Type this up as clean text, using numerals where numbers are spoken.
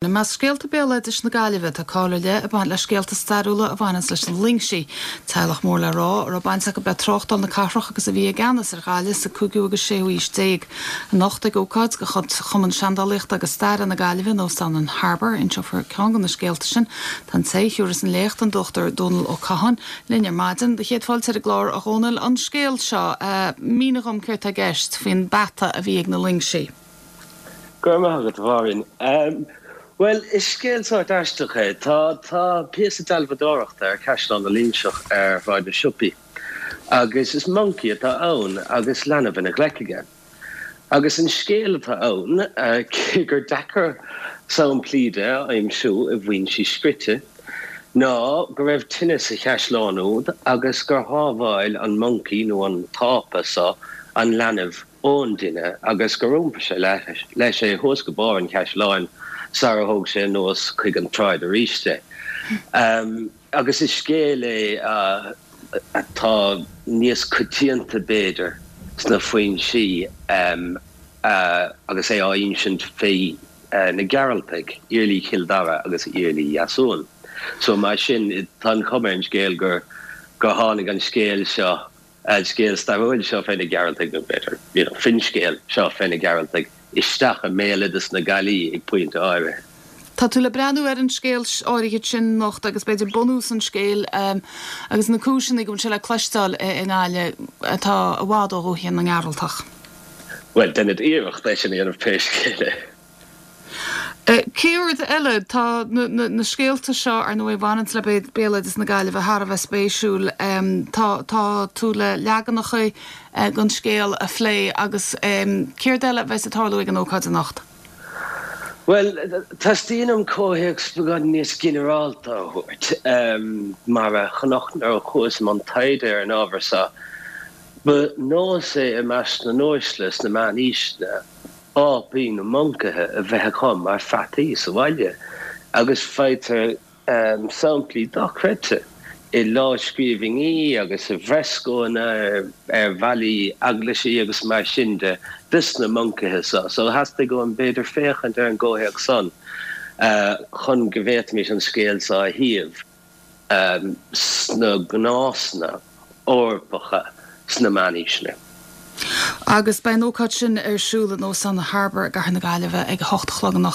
I measc scéalta béaloidis na Gaillimhe, tá cáil ar leith ag baint le scéalta stairiúla a bhaineanns leis na Loingsigh, teaghlach mór le rá a raibh baint acu le tráchtáil na cathrach agus a bhí i gceannas ar Ghaillimh sa cúigiú agus séú haois déag. Anocht ag ócáid de chuid Chumann Seandálaíochta agus Staire na Gaillimhe in Óstán an Harbour, inseofar ceann de na scéalta sin. Tá an té a thiúrfas an léacht, an Dr Dónal Ó Catháin, linn ar maidin. Do chéad fáilte ar an gclár, a Dhónaill. An scéal seo, mínigh dhom céard tá i gceist faoin bpeata a bhí ag na Loingsigh. Go raibh maith agat, a Mháirín. Bhuel, is scéal sórt aisteach é. Tá, tá píosa dealbhadóireachta ar Chaisleán na Loingseach ar Shráid na Siopaí agus is moncaí atá ann agus leanbh ina ghlaic aige. Agus an scéal atá ann, cé gur deacair samplaí de a aimsiú i bhfoinsí scrite, ná go raibh tine sa chaisleán úd agus gur shábháil an moncaí nó an t-ápa so an leanbh ón dtine agus gur iompair sé leis é thuas go barr an chaisleáin sara thóg sé anuas chuig an tsráid arís é. Agus is scéal é atá níos coitianta, b'fhéidir, sna foinsí agus é á insint fé na Gearaltaigh, Iarlaí Chill Dara agus Iarlaí Dheasumhan. So mar sin, tá an chuma ar an scéal gur tháinig an scéal seo an scéal stairiúil seo fé na Gearaltaigh, nó b'fhéidir, you know, finscéal seo fé na Gearaltaigh, isteach i mbéaloideas na Gaillimhe ag pointe áirithe. Tá tú le breathnú ar an scéal áirithe sin anocht agus b'fhéidir bunús an scéil agus na cúiseanna go bhfuil sé le cloisteáil i nGaillimh atá i bhfad ó dhúiche na nGearaltach. Bhuel, déanfad iarracht é sin a dhéanamh pé scéal é. Céard eile? Tá na scéalta seo, ar ndóigh, a bhaineanns le béaloideas na Gaillimhe thar a bheith spéisiúil. Tá tú le leaganacha den scéal a phlé agus céard eile a bheas ag tarlú ag an ócáid anocht? Bhuel, teastaíonn uaim comhthéacs beagán níos ginearálta a thabhairt. Mar a chonac nuair a chuas i mbun taighde ar an ábhar seo, ba nós é i measc na n-uaisle sna meánaoiseanna, ápaí nó moncaithe a bheith acu mar pheataí sa bhaile agus faightear samplaí dochreidte i lámhscríbhinní agus i bhfreascónna ar bhallaí eaglaisí agus mar sin de dos na moncaithe seo. So theastaigh uaim b'fhéidir féachaint ar an gcomhthéacs san chun go bhféadfaimis an scéal seo a shuíomh. sna gnásanna Eorpacha sna meánaoiseanna. Agus beidh an ócáid sin ar siúl in Óstán an Harbour i gCathair na Gaillimhe ag a hocht a chlog anocht.